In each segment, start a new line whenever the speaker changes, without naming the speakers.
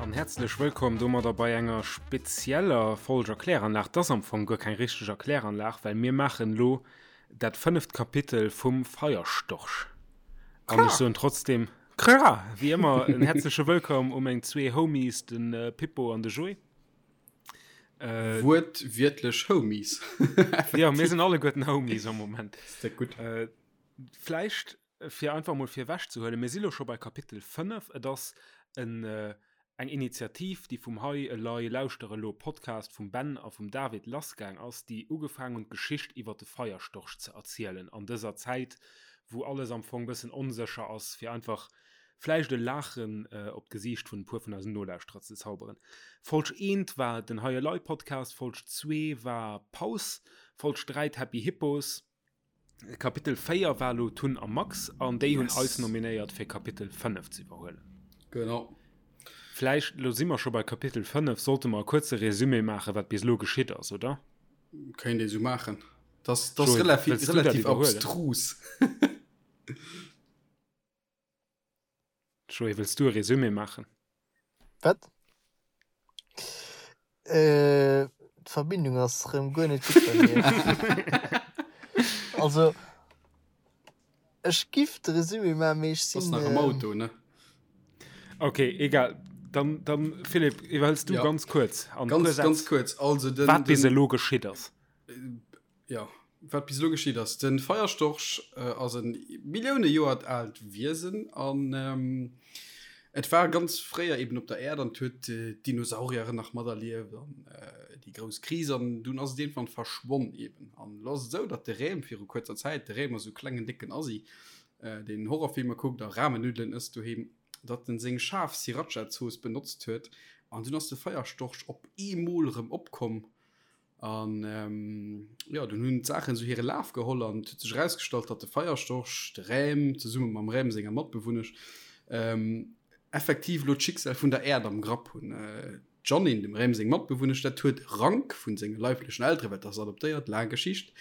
An häerzlech wëllkomm domadder bei enger spezieller Folg Erkläranlag. 't ass am Fong guer keng richteg Erkläranlag, well mir maachen elo dat fënneft Kapitel vum Feierstorch. An ech soen trotzdem, Kra! Wéi ëmmer en häerzleche Wëllkomm u meng zwee Homies, de Pippo an de Joé.
Äh, Wuertwiertlech Homies.
ja, mir sinn alleguerten Homies am Moment.
Ist dat gutt.
Äh, vläicht, fir einfach mol virwech ze huelen, mir si lo scho bei Kapitel 5. Et ass en, äh, eng Initiativ, déi vum Hei elei lauschter elo Podcast vum Ben a vum David lassgaang ass, déi ugefaang hunn d'Geschicht iwwer de Feierstorch ze erzielen an dëser Zäit, wou alles am Fong bëssen onsécher ass, fir einfach vläicht e Laachen op d'Gesiicht vun e puer vun eisen Nolauschterer ze zauberen. Folg eent war den Hei Elei Podcast, Folg zwee war Paus, Folg 3 d'Happy Hippos, Kapitel 4 war elo Tun a Max an déi hunn eis nominéiert fir Kapitel 5 ze iwwerhuelen.
Genau.
Vläicht, elo si mer scho bei Kapitel 5, sollte mer e kuerze Resumé maachen, wat bis elo geschitt ass, oder?
Kéint ee sou maachen. Dat ass relativ, relativ abstrus.
Joé, wëlls du e Resumé maachen?
Wat? Äh, d'Verbindung ass rëm guer net gutt bei mir. Also, ech giff de Resumé maachen, mee ech
sinn. Bass nach am Auto, ne?
Ok, egal. Dann, dann Philipp, iwwerhëls du
ja.
ganz kuerz.
An ganz, ganz kuerz.
Also den, wat bis elo geschitt ass.
Ja, wat bis elo geschitt ass. Den Feierstorch ass e Millioune Joer aalt Wiesen an et war ganz fréier eben op der Äerd an huet d'Dinosaurieren nach materlieft an déi grouss Kris an dunn ass et iergendwann verschwonn eben. An elo ass et esou, datt de Rem viru kuerzer Zäit, de Rem ass esou e klengen décken Assi, deen Horrorfilmer kuckt a Ramennuddelen ësst doheem, datt en seng schaarf Sriracha-Zooss benotzt huet an dunn ass de Feierstorch op eemol erëm opkomm An jo, dunn hunn d'Saachen esou hire Laf geholl an et huet sech erausgestallt, datt de Feierstorch, de Räm, zesumme mam Räm senger Matbewunnesch, effektiv elo d'Schicksal vun der Äerd am Grapp hunn. D'Jeanine, dem Räm seng Matbewunnesch, dat huet Rank vun senge leiblechen Elteren, well dat ass adoptéiert, laang Geschicht,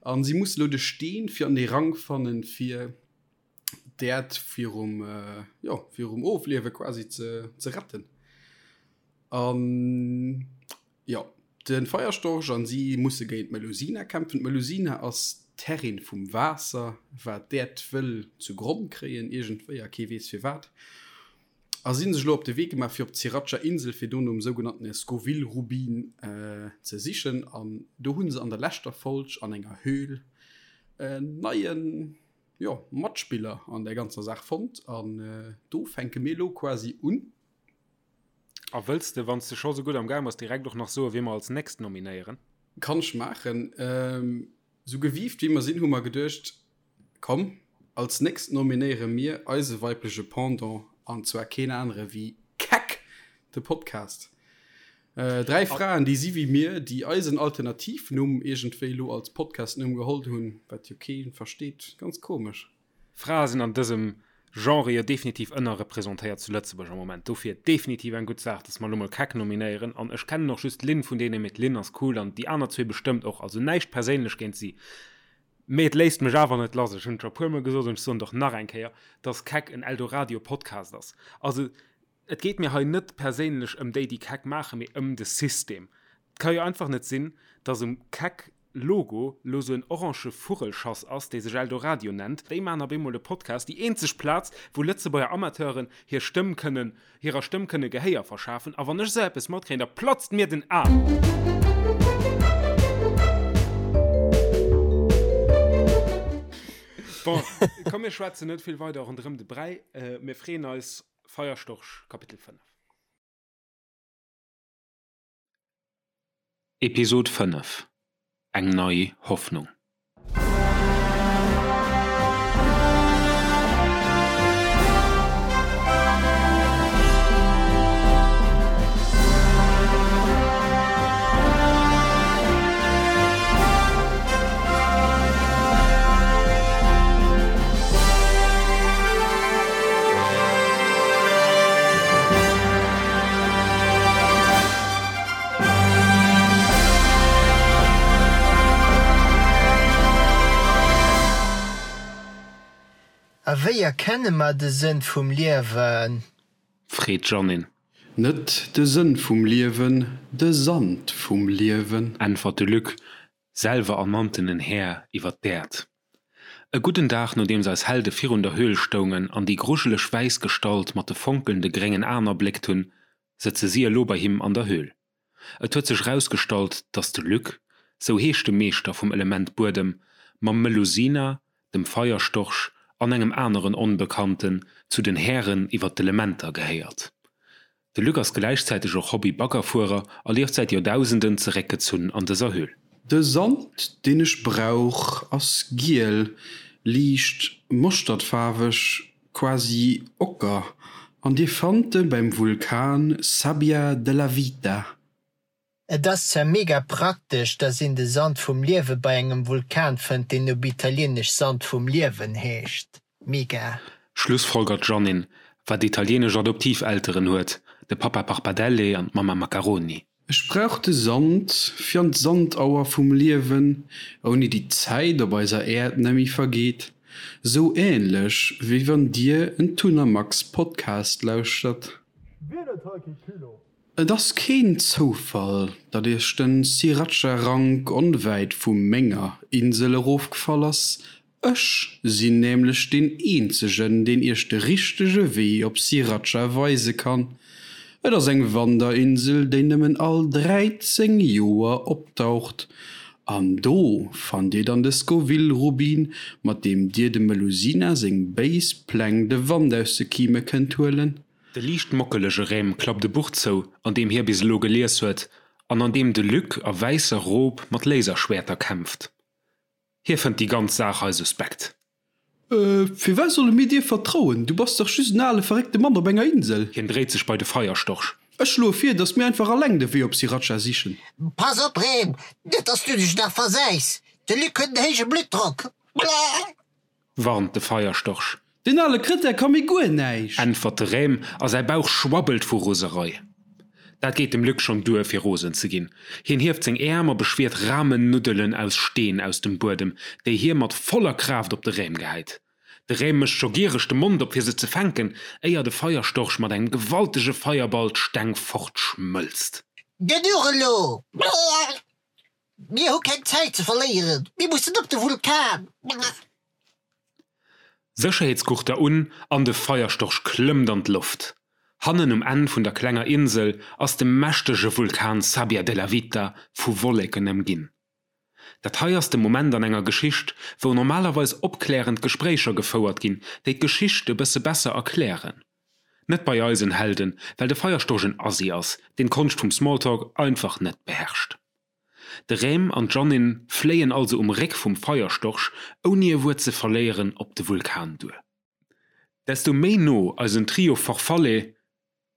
a si muss elo de Steen fir an dee Rank fannen, fir d'Äerd virum, jo, virum Ofliewe quasi ze, ze retten. An jo, de Feierstorch an si musse géint d'Melusina kämpfen. D'Melusina ass d'Herrin vum Waasser, wat d'Äerd wëll zu Gronn kréien iergendwéi a kee weess firwat. A si hunn sech elo op de Wee gemaach fir op d'Siracha Insel fir do nom sougenannten Scoville Rubin ze sichen. An do hu se an der leschter Folg an enger Höhl en neien, jo, Matspiller an där ganzer Saach fonnt. An do fänke mir elo quasi un.
A wëlls de, wann s de scho sou gutt am Gaang bass, direkt och nach soen, wie mer als nächst nominéieren?
Kann ech maachen. Sou gewiift wéi mer sinn, hu mer geduecht, komm, als nächst nominéiere mir eise weibleche Pendant, an zwar keen anere wéi Keck! De Podcast. 3 Fraen, déi si wéi mir, déi eisen Alternativnumm iergendwéi elo als Podcastnumm geholl hunn, wat jo kee versteet. Ganz komesch.
Frae sinn an dësem Genre jo definitiv ënnerrepresentéiert zu Lëtzebuerg am Moment. Dofir definitiv eng gutt Saach, dass mer elo mol Keck nominéieren. An ech kennen och just d'Lynn vun deenen, mee d'Lynn ass cool an déi aner zwee bestëmmt och. Also näischt perséinlech géint si. Mee et léisst mech awer net lass, ech hunn et scho e puermol gesot an ech soen et och nach eng Kéier, dass Keck en Eldoradio-Podcast ass. Also Et geet mir hei net perséinlech ëm déi, déi Keck maachen, mee ëm de System. Et ka jo einfach net sinn, dass um Keck Logo lo sou en orange Vugelschass ass, dee sech Eldoradio nennt. Déi maachen op eemol e Podcast, déi eenzeg Plaz, wou Lëtzebuerger Amateuren hir Stëmm kënnen, hirer Stëmm kënne Gehéier verschafen. A wann ech esou eppes matkréien, da platzt mir den Aarm! Bon, komm mir schwätzen net vill weider ronderëm de Bräi. Mir freeën eis Feierstorch Kapitel 5. Episod 5, Eng nei Hoffnung.
A wéi erkenne mer de Sënn vum Liewen?
Freet d'Jeannine.
Net de Sënn vum Liewen, de Sand vum Liewen.
Äntwert de Luc, selwer ernanntenen Här iwwer d'Äerd. E gudden Dag nodeems eis Helde virun der Höhl stoungen an déi grujeleg wäiss Gestalt mat de fonkelnde gréngen Aen erbléckt hunn, sëtze si elo bei him an der Höhl. Et huet sech erausgestallt, datt de Luc, sou heescht de Meeschter vum Element Buedem, mam Melusina, dem Feierstorch an engem aneren Onbekannten zu den Hären iwwer d'Elementer gehéiert. De Luc ass gläichzäiteg och Hobby-Baggerfuerer a lieft säit Joerdausenden zeréckgezunn an dëser Höhl.
De Sand deen ech brauch ass giel, liicht moschtertfaarweg, quasi ocker, an dir fannt e beim Vulkan Sabbia della Vita.
Et ass zwar mega praktesch, dass een de Sand vum Liewe bei engem Vulkan fënnt, deen op Italieenesch Sand vum Liewen heescht. Mega.
Schlussfolgert d'Jeannine, wat italienesch Adoptivelteren huet, de Papa Parpadelle an d'Mamma Macaroni.
Ech brauch de Sand fir an d'Sandauer vum Liewen, ouni déi d'Zäit op eiser Äerd nemmi vergeet, sou ähnlech wéi wann dir en Tun a Max Podcast lauschtert.
Wien huet hei kee Culot?
Et ass keen Zoufall, datt iech den Sriracha Rank onwäit vu menger Insel erofgefall ass, Ech sinn nämlech deen eenzegen, deen iech de richtege Wee op Sriracha weise kann. Et ass eng Wanderinsel, déi nëmmen all 13 Joer opdaucht. An do fannt dir dann de Scoville-Rubin, mat deem dir dem Melusina seng béis Pläng de Wand aus de Kime kënnt huelen.
De liicht mockelege Rem klappt e Buch zou, an deem hie bis elo gelies huet, an an deem de Luc a wäisser Rob mat Laserschwäerter kämpft. Hie fënnt déi ganz Saach hei suspekt.
Firwat solle mir dir vertrauen? Du bass dach just en ale verréckte Mann op enger Insel.
Hien dréit sech bei de Feierstorch.
Ech schloe vir, datt mir einfach alleng de Wee op Sriracha sichen.
Pass op, Rem, net datt s du dech nach versäis. De Luc huet en héije Bluttdrock.
Warnt de Feierstorch.
Deen ale Krëtär ka mir guer näischt!
Äntwert de Rem a säi Bauch schwabbelt vu Roserei. Dat geet dem Luc schonn duer, fir rosen ze ginn. Hien hieft seng Äerm a beschwiert Ramennuddelen aus Steen aus dem Buedem, déi hie mat voller Kraaft op de Rem gehäit. De Rem mécht scho giereg de Mond op fir se ze fänken, éier de Feierstorch mat engem gewaltege Feierball d'Steng fortschmëlzt.
Genuch elo! Mir hu keng Zäit ze verléieren, mir mussen op de Vulkan!
Sécherheetsgurter un an de Feierstorch klëmmt an d'Loft. Hannen um Enn vun der klenger Insel ass de mächtege Vulkan Sabbia della Vita vu Wolleken ëmginn. Dat hei ass de Moment an enger Geschicht, wou normalerweis opklärend Gespréicher gefouert ginn, déi d'Geschicht e bësse besser erklären. Net bei eisen Helden, well de Feierstorch en Assi ass, deen d'Konscht vum Smalltalk einfach net beherrscht. De Rem an d'Jeannine fléien also um Réck vum Feierstorch ouni e Wuert ze verléieren op de Vulkan duer. Desto méi no eisen Trio Farfalle,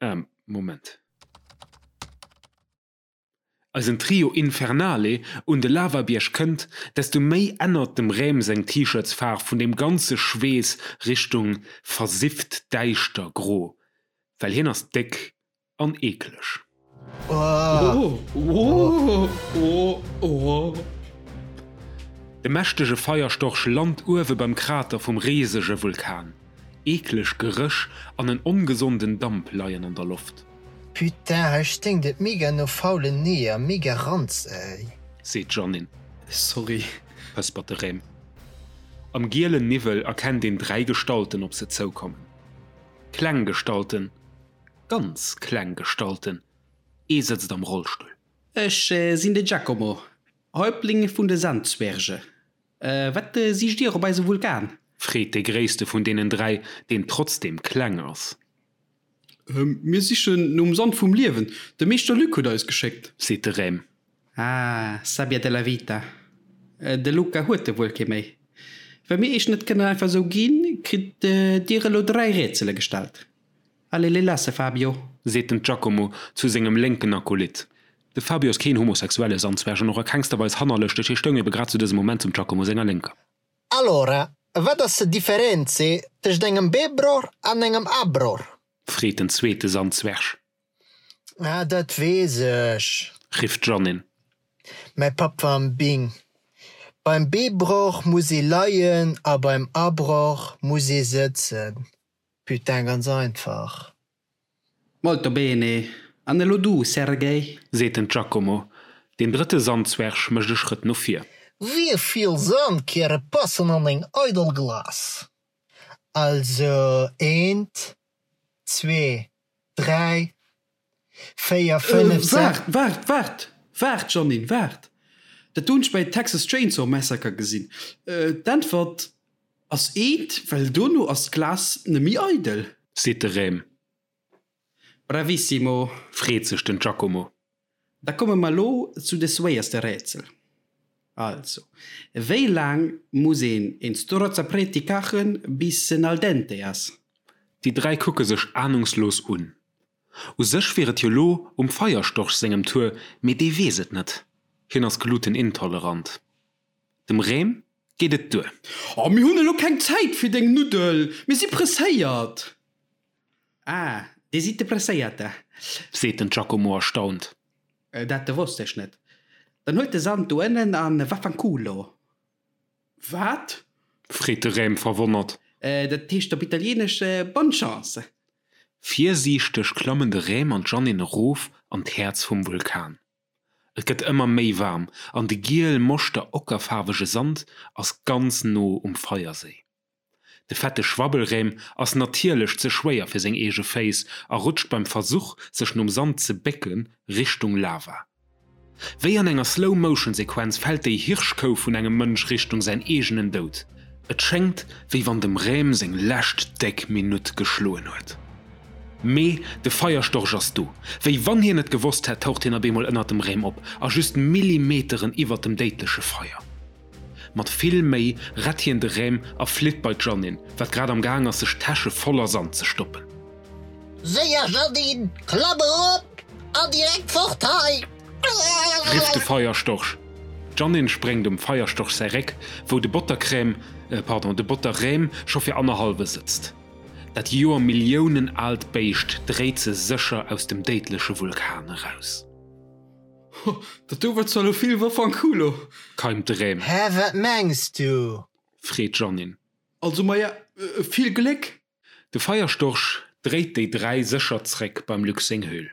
ähm, Moment. Eisen Trio Infernale un de Lavabierg kënnt, desto méi ännert dem Rem seng T-Shirtsfaarf vun deem ganze Schweess Richtung versifft däischter gro, well hien ass déck An eekleg. De mächtege Feierstorch lant uewe beim Krater vum risege Vulkan. Eekleg Geréch an en ongesonden Damp leien an der Loft.
Putain, hei sténkt et mega no faulen Eeër, mega Ranz ey.
Seet d'Jeannine.
Sorry.
Pëspert de Rem. Am gielen Niwwel erkennt een 3 Gestalten op se zoukommen. Kleng Gestalten, Ganz kleng Gestalten, ee sëtzt am Rollstull.
Ech sinn de Giacomo, Häuptling vun de Sandzwerge. Wat sicht Dir op eisem Vulkan?
Freet dee gréisste vun deenen 3, deen trotzdeem kleng ass.
Mir sichen nom Sand vum Liewen. De Meeschter Luc huet eis geschéckt.
Seet de Rem.
Ah, Sabbia della vita. De Luca huet e wuel kee méi. Well mir iech net kënnen einfach esou ginn, kritt Dir elo 3 Rätsele gestallt. Allez les lasse, Fabio!
Seet den Giacomo zu sengem lénken Akolyt. De Fabio ass keen homosexuelle Sandzwerg an och a kengster Weis hannerlëschteg, hie stoung ebe grad zu dësem Moment zum Giacomo senger Lénker.
Allora, wat ass de Differenze tëscht engem B-Bror an engem A-Bror?
Freet den zweete Sandzwerg.
Ah, dat weess ech!
Rifft d'Jeannine.
Mäi Papp war am Bing. Beim B-Bror muss ee leien a beim A-Bror muss ee sëtzen. Putain, ganz einfach.
Molto bene. An elo du, Sergej?
Seet den Giacomo. Deen drëtte Sandzwerg mécht e Schrëtt no vir.
Wéi vill Sandkäre passen an eng eidel Glas? Also eent, zwee, dräi, 4, 5, 6.
Waart, waart, waart, waart, Jeannine, waart! Dat do hunn ech bei Texas Chainsaw Massacre gesinn. D'Äntwert ass eent, well dono ass d'Glas nemmi eidel.
Seet de Rem.
Bravissimo!
Freet sech den Giacomo.
Da komme mer elo zu de swéierste Rätsel. Also, wéi laang muss een een Strozzapreti kachen, bis en al dente ass?
Déi 3 kucke sech ahnungslos un. U sech wier et jo lo um Feierstorch sengem Tour, mee dee weess et net, hien ass glutenintolerant. Dem Rem geet et duer.
Oh, mir hunn elo keng Zäit fir deng Nuddel, mir si presséiert! Ah, dir sidd de Presséierte?
Seet den Giacomo erstaunt.
Dat wosst ech net. Dann huelt de Sand do ënnen a vaffanculo! Wat?
Freet de Rem verwonnert.
Dat heescht op Italieenesch Bonne chance!
Virsiichteg klammen de Rem an d'Jeannine erof an d'Häerz vum Vulkan. Et gëtt ëmmer méi waarm an de giel moschter ockerfaarwege Sand ass ganz no um Feierséi. De fette Schwabbelrem ass natierlech ze schwéier fir seng eege Féiss a rutscht beim Versuch, sech nom Sand ze bécke Richtung Lava. Wéi an enger Slow-Motion-Sequenz fält déi Hirschkou vun engem Mënsch Richtung säin eegenen Doud. Et schéngt, wéi wann dem Rem seng lescht déck Minutt geschloen huet. Mee de Feierstorch ass do. Wéi wann hien et gewosst hätt, taucht hien op eemol ënnert dem Rem op a just Millimeteren iwwert dem déidleche Feier. Mat vill Méi rett hien de Rem a flitt bei d'Jeannine, wat grad am Gaang ass sech d'Täsche voller Sand ze stoppen.
Séier Jeannine, klamm erop an direkt fort hei!
Rifft de Feierstorch. D'Jeannine spréngt um Feierstorch säi Réck, wou de Bottercrème, pardon, de Botterrem scho fir annerhallwe sëtzt. Dat joermilliounen aalt Béischt dréit se sécher aus dem déidleche Vulkan eraus.
Ho, dat do war zwar lo vill Vaffanculo!
Keimt de Rem.
Hä, wat mengs du?
Freet d'Jeannine.
Also, maja, vill Gléck!
De Feierstorch dréit déi 3 sécher zréck beim Luc seng Höhl.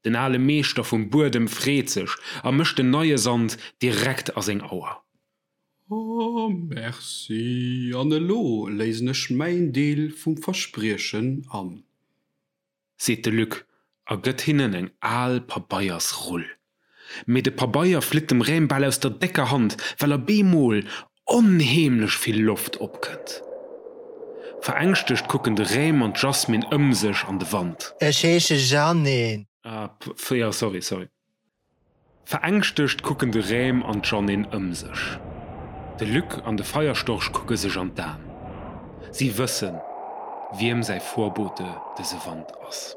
Den ale Meeschter vum Buedem freet sech a mécht den neie Sand direkt a seng Auer.
Oh, merci, an elo léisen ech mäin Deel vum Verspriechen an.
Seet de Luc a gëtt hinnen eng al Pabeiersrull. Mee de Pabeier flitt dem Rem bal aus der décker Hand, well a bemol onheemlech vill Loft opkënnt. Verängschtegt kucken de Rem an d'Jasmine ëm sech an de Wand.
Ech heesche Jeannine.
Ah, jo, sorry, sorry. Verängschtegt kucken de Rem an d'Jeannine ëm sech. De Luc an de Feierstorch kucke sech an d'Aen. Si wëssen, wiem säi Vorbote dëse Wand ass.